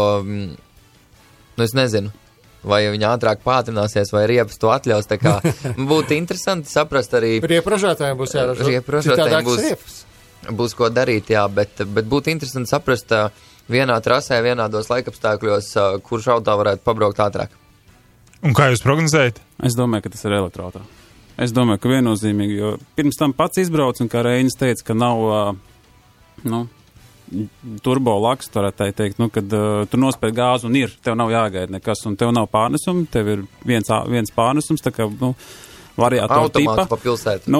es nezinu, vai viņa ātrāk pātrināsies, vai riepas to atļaus. Tā kā būtu interesanti saprast arī... Riepražātājiem būs jāražo. Riepražātājiem būs ko darīt, jā, bet būtu interesanti saprast vienā trasē, vienādos laikapstākļos, kurš auto varētu pabraukt ātrāk. Un kā jūs prognozējat? Es domāju, ka tas ir elektroauto. Es domāju, ka viennozīmīgi, jo pirms tam pats izbrauc, un kā Reinis teica, ka nav, turbo laks, varētu teikt, kad tu nospēj gāzi un tev nav jāgaida nekas, un tev nav pārnesumi, tev ir viens pārnesums, tā kā, variātoru tipa. Automāts pa pilsētu.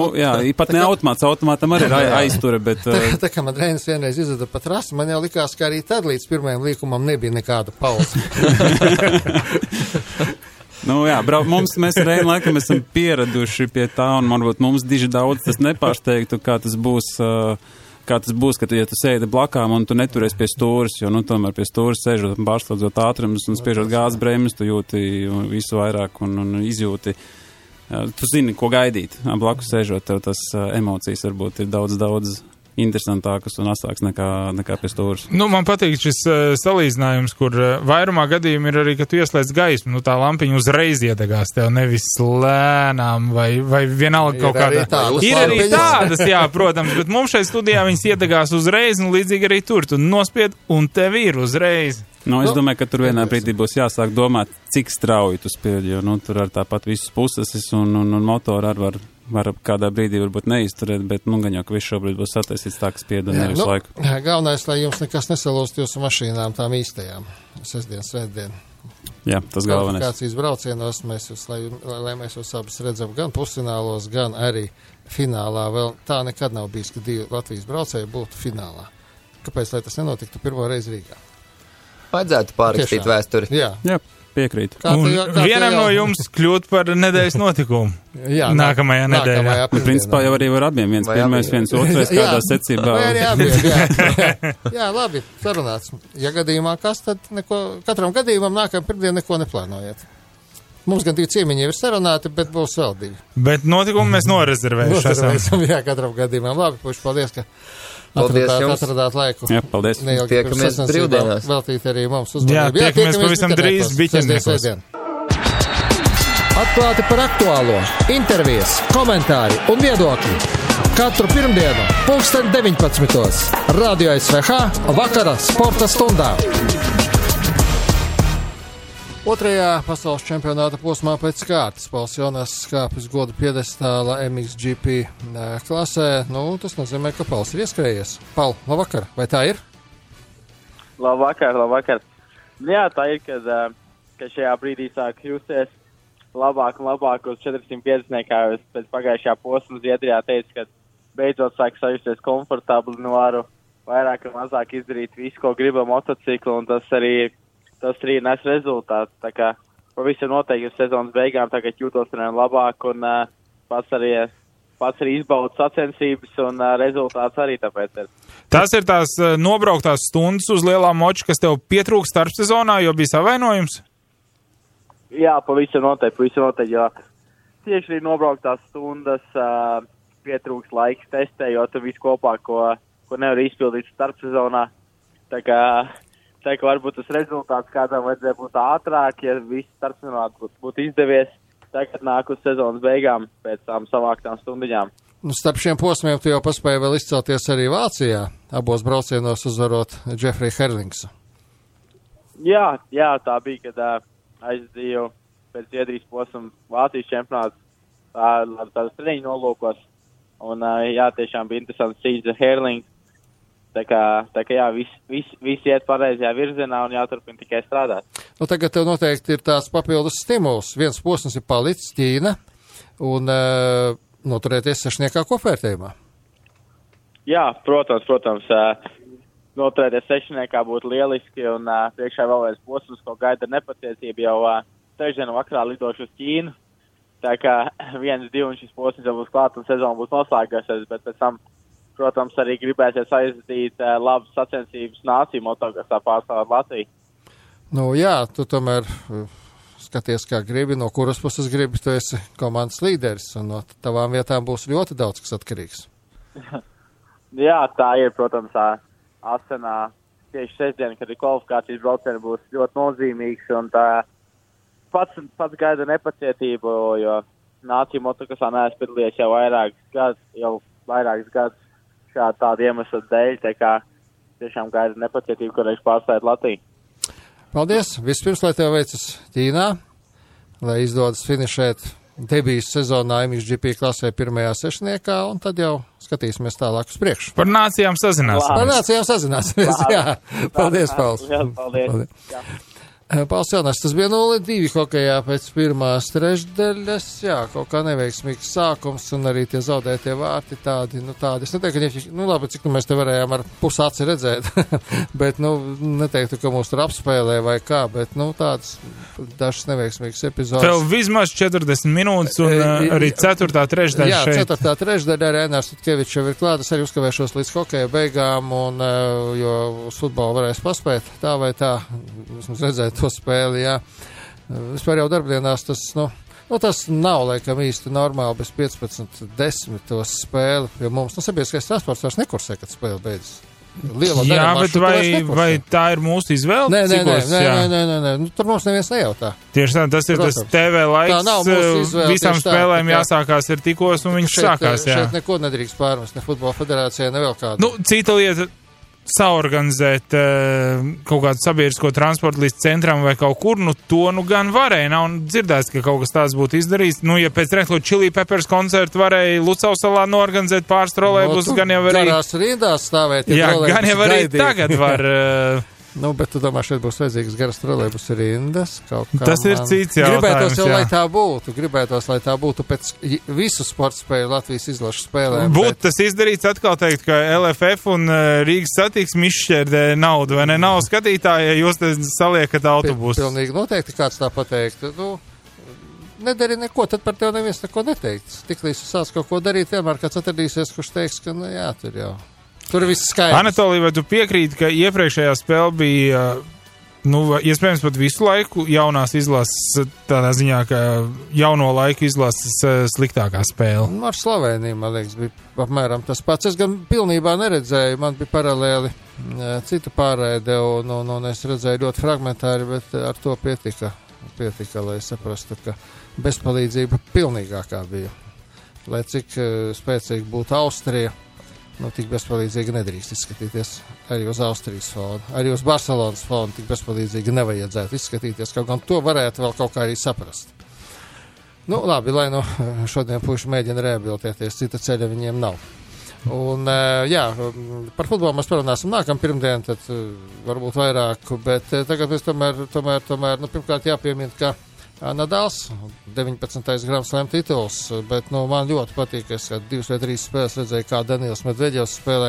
Pat ne automātam arī ir aizture, bet... Tā kā man Reinis vienreiz izveda pa trasi, man jau likās, ka arī tad līdz pirmajam līkumam nebija nekāda pauze. Mēs ar Reini laikam esam pieraduši pie tā, un varbūt mums diži daudz tas nepārsteigtu, kā tas būs, ka tu sēdi blakām un tu neturies pie stūres, jo, tomēr pie stūres sēžot un pārslēdzot ātrumus un spiežot gāzes bremzes, tu jūti visu vairāk un izjūti. Tu zini, ko gaidīt. Blakus sēžot, tev tas emocijas varbūt ir daudz interesantākas un asāks nekā pie stūras. Man patīk šis salīdzinājums, kur vairumā gadījumi ir arī, ka tu ieslēdz gaismu, tā lampiņa uzreiz iedegās tev, nevis lēnām vai vienalga kaut kādā. Ir arī tādas, jā, protams, bet mums šeit studijā viņas iedegās uzreiz, un līdzīgi arī tur, tu nospied, un tev ir uzreiz. Es domāju, ka tur vienā brīdī būs jāsāk domāt, cik strauji tu spied, jo tur ar tāpat visas puses un motoru var kādā brīdī varbūt neizturēt, bet gan jau, ka viss šobrīd būs sataisīts tā, ka spied un nevis laiku. Galvenais, lai jums nekas nesalūst jūsu mašīnām tām īstajām. Sestdien, svētdien. Jā, tas galvenais. Kvalifikācijas braucienos lai mēs jūs abas redzam gan pusfinālos, gan arī finālā. Vēl tā nekad nav bijis, ka divi Latvijas braucēji būtu finālā. Kāpēc, lai tas nenotiktu pirmo reizi Rīgā? Vajadzētu pārrakstīt vēsturi. Jā. Piekrītu. Vienam no jums kļūt par nedēļas notikumu. Jā, nākamajā nedēļā. Principā jau arī var abiem, viens pirmais, viens otrais, kādā secībā. Vai arī abiem, jā, labi, sarunāts. Ja gadījumā kas, tad katram gadījumam nākamajā pirmdien neko neplānojiet. Mums gan 2 ciemiņi ir sarunāti, bet būs vēl 2. Bet notikumu mēs norezervējuši. Jā, katram gadījumam. Labi, puši, paldies, ka atradāt laiku. Jā, paldies. Tiekamies brīvdienās. Veltīt arī mums uzmanību. Jā, tiekamies pavisam drīz biķerniekos. Atklāti par aktuālo, intervijas, komentāri un viedokļi. Katru pirmdienu, 19:00. Radio SVH vakara sporta stundā. Otrajā pasaules čempionāta posmā pēc kārtas Pauls Jonas skāpjas goda piedestāla MXGP klasē. Tas nozīmē, ka Pauls ir ieskrējies. Paul, labvakar, vai tā ir? Labvakar. Jā, tā ir, kad šajā brīdī sāk justies labāk un labāk uz 450, kā es pēc pagājušajā posma Zviedrijā teicu, ka beidzot sāk sajusties komfortabli, varu vairāk un mazāk izdarīt visu, ko gribu motociklu, un tas arī nes rezultātu. Tā kā pavisam noteikti uz sezonas beigām tagad jūtos labāk un pats arī izbaudu sacensības un rezultāts arī tāpēc ir. Tas ir tās nobrauktās stundas uz lielā moča, kas tev pietrūkst starpsezonā, jo bija savainojums? Jā, pavisam noteikti, jo tieši arī nobrauktās stundas pietrūkst laiks testējot visu kopā, ko nevar izpildīt starpsezonā. Tā kā varbūt tas rezultāts kādam vajadzēja būt ātrāk, ja viss starpsezonā būtu izdevies. Tagad nāk uz sezonas beigām pēc tām savāktām stundiņām. Starp šiem posmiem tu jau paspēji vēl izcelties arī Vācijā, abos braucienos uzvarot Jeffrey Herlingsu. Jā, tā bija, kad aizdīju pēc Zviedrijas posma Vācijas čempionāts ar tādas treniņu nolūkos. Un tiešām bija interesants cīņas ar Herlings. Tā kā jā, viss iet pareizajā virzienā un jāturpina tikai strādāt. Tagad tev noteikti ir tās papildus stimuls. Viens posms ir palicis Ķīna un noturēties sešniekā kopvērtējumā. Jā, protams. Noturēties sešniekā būtu lieliski un priekšā vēl viens posms, ko gaida nepacietība jau trešdienu vakarā lidošu uz Ķīnu. Tā kā 1-2 šis posms jau būs klāt un sezona būs noslēgāsies, bet pēc tam protams, arī gribēsies aizdīt labas sacensības nāciju motokasā pārstāvot Latviju. Jā, tu tomēr skaties, kā gribi, no kuras puses gribi, tu esi komandas līderis, un no tavām vietām būs ļoti daudz, kas atkarīgs. Jā, tā ir, protams, Asenā tieši sestdien, kad ir kvalifikācijas braucieni, būs ļoti nozīmīgs, un tā pats gaida nepacietību, jo nāciju motokasā neesmu piedalījies jau vairākus gadus. Tāda iemesla dēļ, tā kā tiešām gaida nepacietību, kad viņš pārstāvēt Latviju. Paldies! Vispirms, lai tev veicas Ķīnā, lai izdodas finišēt debijas sezonā MXGP klasē pirmajā sešniekā, un tad jau skatīsimies tālāk uz priekšu. Par nācijām sazināsimies. Jā. Paldies, Pauls. Paldies. Jā. Pauls Jonas, tas bija 0-2 hokejā pēc pirmās trešdaļas, kaut kā neveiksmīgs sākums un arī tie zaudētie vārti tādi. Es neteiktu, ka, labi, cik mēs te varējām ar pusaci redzēt, bet, neteiktu, ka mūs tur apspēlē vai kā, bet, tādas dažas neveiksmīgas epizodes. Vēl vismaz 40 minūtes un arī 4. trešdaļa šeit. Jā, 4. trešdaļa arī Ēnārs Tutkevičs jau ir klāt, es arī uzkavēšos līdz hokeja beigām un, jo uz futbolu varēs paspēt tā vai tā, vismaz redzēt to spēli, jā. Vispār jau darbdienās tas, tas nav laikam īsti normāli bez 15-10 tos spēli, jo mums, sabiedriskais transports vairs nekursē, kad spēle beidzas. Jā, bet vai tā ir mūsu izvēle? Nē, tur mums neviens nejautā. Tieši tā, tas ir tas TV laiks, visām spēlēm jāsākās ir tikos un viņas sākās, jā. Šeit neko nedrīkst pārmest, ne futbola federācijai, ne vēl kādu. Cita lieta saorganizēt kaut kādu sabiedrisko transportu līdz centram vai kaut kur, to gan varēja. Nav dzirdēts, ka kaut kas tāds būtu izdarīts. Ja pēc Red Hot Chili Peppers koncertu varēja Lucausalā noorganizēt pāris trolejbus, gan jau arī... Garās rindās stāvēt. Jā, gan jau arī tagad var Nu, bet tu domā, šeit būs vajadzīgs garas trolejbus rindas. Tas ir cits jautājums. Gribētos jau, lai tā būtu. Gribētos, lai tā būtu pēc visu sporta spēju Latvijas izlašu spēlēm. Būtu tas izdarīts atkal teikt, ka LFF un Rīgas satiksme izšķērdē naudu, vai ne? Nav skatītāji, ja jūs te saliekat autobusu. Pilnīgi noteikti kāds tā pateikt. Nu, nedari neko, tad par tevi neviens neko neteiks. Tiklīdz tu sāc kaut ko darīt, vienmēr kāds atradīsies, kurš teiks, ka, nu jā, tur jau. Tur viss skaidrs. Anatolija, vai tu piekrīti, ka iepriekšējā spēle bija, iespējams pat visu laiku jaunās izlases, tādā ziņā, ka jauno laiku izlases sliktākā spēle? Ar Sloveniju, man liekas, bija apmēram tas pats. Es gan pilnībā neredzēju, man bija paralēli cita pārēde, un es redzēju ļoti fragmentāri, bet ar to pietika, lai saprastu, ka bezpalīdzība pilnīgākā bija. Lai cik spēcīgi būtu Austrija, tik bezpalīdzīgi nedrīkst izskatīties arī uz Austrijas fonu. Arī uz Barcelonas fonu tik bezpalīdzīgi nevajadzētu izskatīties, kaut gan to varētu vēl kaut kā arī saprast. Labi, lai šodien puiši mēģina rehabilitēties, cita ceļa viņiem nav. Un, jā, par futbolu mēs parunāsim nākam pirmdien, tad varbūt vairāk, bet tagad mēs tomēr pirmkārt jāpiemina, ka Nadals, 19. Grand Slam tituls, bet man ļoti patīk, es 2 vai 3 spēles redzēju, kā Danils Medveģevs spēlē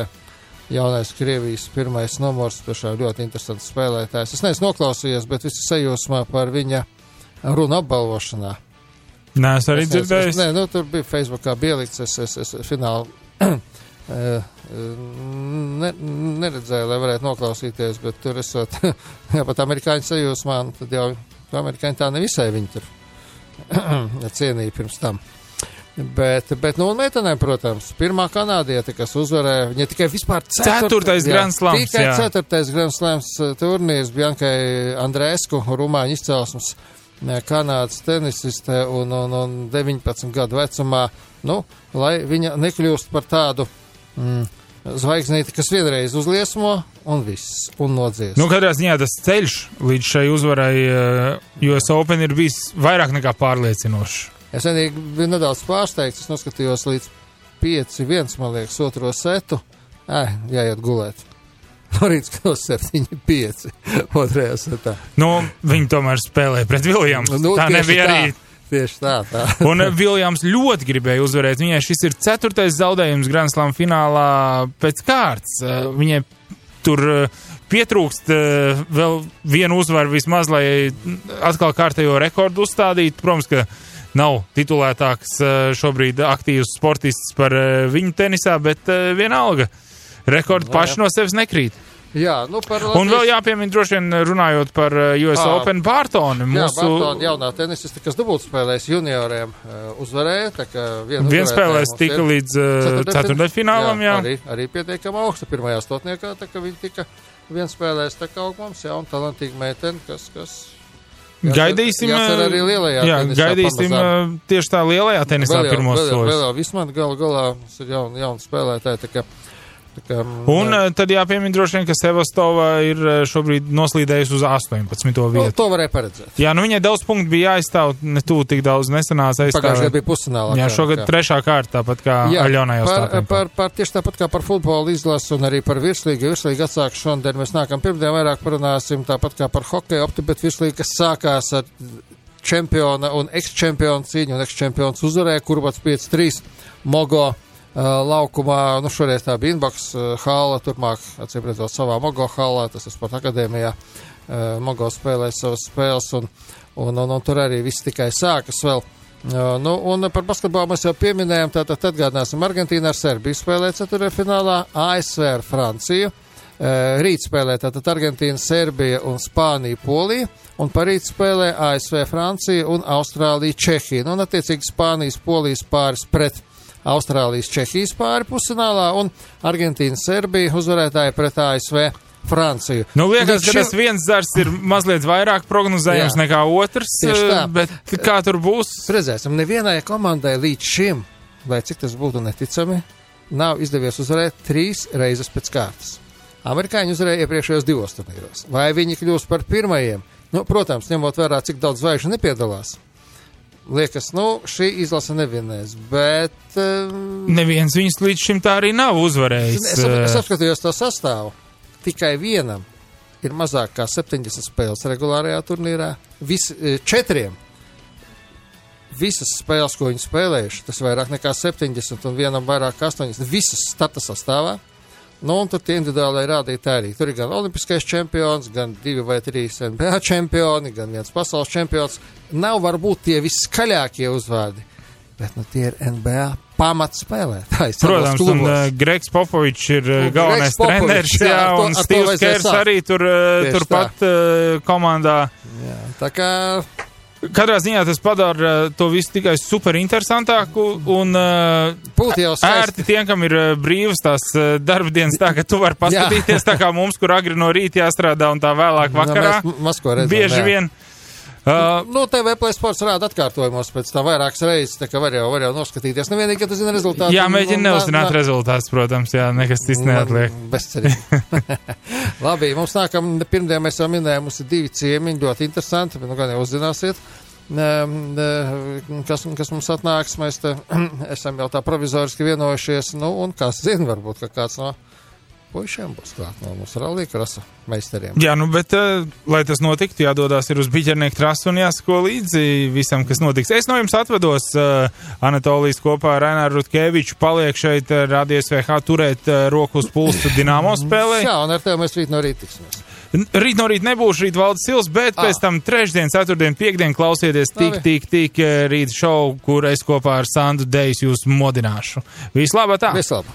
jaunais Krievijas pirmais numurs, tiešām ļoti interesants spēlētājs. Es neesmu noklausījies, bet visi sajūsmā par viņa runu apbalvošanā. Nē, es arī dzirdēju. Tur bija Facebookā bielikts, es fināli neredzēju, lai varētu noklausīties, bet tur esot, jā, pat amerikāņu sajūsmā, tad jau amerikāņi tā nevisai viņi tur cienīja pirms tam. Bet un meitenēm, protams, pirmā kanādiete, kas uzvarēja, viņa tikai vispār 4. Grand Slams, tikai 4. Grand Slams turnīrs Biankai Andrēsku, rumāņu izcelsmes Kanādas tenisiste un 19 gadu vecumā, lai viņa nekļūst par tādu zvaigznīti, kas vienreiz uzliesmo un viss, un nodzies. Katrā ziņā tas ceļš līdz šai uzvarai US Open ir bijis vairāk nekā pārliecinošs. Es vienīgi biju nedaudz pārsteigts, es noskatījos līdz 5-1, man liekas, otro setu. Jāiet gulēt. No rīts kļūst 7-5 otrajā setā. Viņi tomēr spēlēja pret Viljams. Tā nebija arī. Tieši tā. Un Viljams ļoti gribēja uzvarēt. Viņai šis ir 4. zaudējums Grand Slam finālā pēc kārtas. Viņai tur pietrūkst vēl vienu uzvaru vismaz, lai atkal kārtējo rekordu uzstādītu. Protams, ka nav titulētāks šobrīd aktīvs sportists par viņu tenisā, bet vienalga. Rekordi paši no sevis nekrīt. Jā, par Latvijas... Un vēl jāpiemina, droši vien runājot par US Open Bārtoni. Bārtoni jaunā tenisiste, kas dubultspēlēs junioriem, uzvarēja. Viens spēlēs tika līdz ceturtdaļfinālam, jā. Arī pietiekama augsta pirmajā stotniekā, tā ka viņi tika viens spēlēs tā kā augmums, un talantīga meitene, kas gaidīsim, arī lielajā tenisā gaidīsim pamazām. Tieši tā lielajā tenisā pirmos soļus. Vēl vismaz galā ir jauna spēlētāja, tā kā un tad jāpiemina droši vien, ka Sevastova ir šobrīd noslīdējusi uz 18. vietu. To varēja paredzēt. Jā, viņai daudz punktu bija jāizstāv, tik daudz nesanāca aizstāvēt. Pagājušajā bija pusfinālā. Jā, šogad 3. kārta, tāpat kā Aļonai Ostāpenko. Tieši tāpat kā par futbolu izlasu un arī par virslīgu. Virslīga atsāk šodien, mēs nākam pirmdien vairāk parunāsim, tāpat kā par hokeju opti, bet virslīga, kas sākās ar čempiona un eks-čempiona cīņu, un eks-čempions uzvarēja, Kurbats 5-3 Mogo laukumā, šoreiz tā bija Inbox hāla, turpmāk, acīm redzot, savā Mogo hālā, tas ir Sporta akadēmijā, Mogo spēlēja savas spēles, un tur arī viss tikai sākas vēl. Un par basketbolu mēs jau pieminējām, tātad atgādināsim, Argentīna ar Serbiju spēlē ceturtfinālā, ASV ar Franciju, rīt spēlē tātad Argentīna, Serbija un Spānija, Polija, un parīt spēlē ASV, Francija un Austrālija, Čehija, un attiecīgi Spānijas, Polijas pāris pret Austrālijas, Čehijas pāri pusfinālā un Argentīna, Serbija uzvarētāji pret ASV, Franciju. Liekas, ka tas viens zars ir mazliet vairāk prognozējams nekā otrs, bet kā tur būs? Redzēsim, nevienai komandai līdz šim, lai cik tas būtu neticami, nav izdevies uzvarēt 3 reizes pēc kārtas. Amerikāņi uzvarēja iepriekšējos 2 turnīros. Vai viņi kļūs par pirmajiem? Protams, ņemot vērā, cik daudz zvaigžņu nepiedalās. Liekas, šī izlase nevienēs, bet... Neviens viņus līdz šim tā arī nav uzvarējis. Es apskatījos to sastāvu. Tikai vienam ir mazāk kā 70 spēles regulārajā turnīrā. 4 visas spēles, ko viņi spēlējuši, tas vairāk nekā 70 un vienam vairāk kā 80, visas starta sastāvā. Nu, un tur tie individuālai rādītāji arī. Tur ir gan olimpiskais čempions, gan 2 vai 3 NBA čempioni, gan viens pasaules čempions. Nav varbūt tie viskaļākie uzvārdi, bet nu tie ir NBA pamatspēlētājs. Protams, un Gregs Popovičs ir galvenais treneris, un Steve's Kers arī turpat komandā. Jā, tā kā... Katrā ziņā tas padara to visu tikai super interesantāku un ērti tiem, kam ir brīvas tās darba dienas tā, ka tu vari paskatīties tā kā mums, kur agri no rīta jāstrādā un tā vēlāk vakarā. Bieži vien. TV Play Sports rāda atkārtojumos pēc tā vairākas reizes, tā kā var jau noskatīties. Nevienīgi, ka tu zini rezultātu. Jā, mēģina neuzzināt rezultātus, protams, jā, nekas cits neatliek. Bezcerīgi. Labi, mums nākam, pirmdien mēs jau minējām, mums ir 2 ciemiņi, ļoti interesanti, bet nu gan jau uzzināsiet, kas mums atnāks, mēs te esam jau tā provizoriski vienojušies, nu, un kas zina, varbūt, ka kāds no puišiem būs klāt no mūsu rallija-krosa meistariem. Jā, nu, bet, lai tas notiktu, jādodās ir uz Biķernieku trasu un jāsako līdzi visam, kas notiks. Es no jums atvedos, Anatolijas kopā ar Raināru Rutkeviču, paliek šeit Radio SVH turēt roku uz pulsu Dinamo spēlē. Jā, un ar tevi mēs rīt no rīta tiksimies. Rīt no rīta nebūšu rīt Valdis Sils, bet pēc tam trešdien, ceturtdien, piekdien klausieties tik rīt šovu, kur es kopā ar Sandu Dejs jūs modināšu. Vislabāk tā! Vislabāk!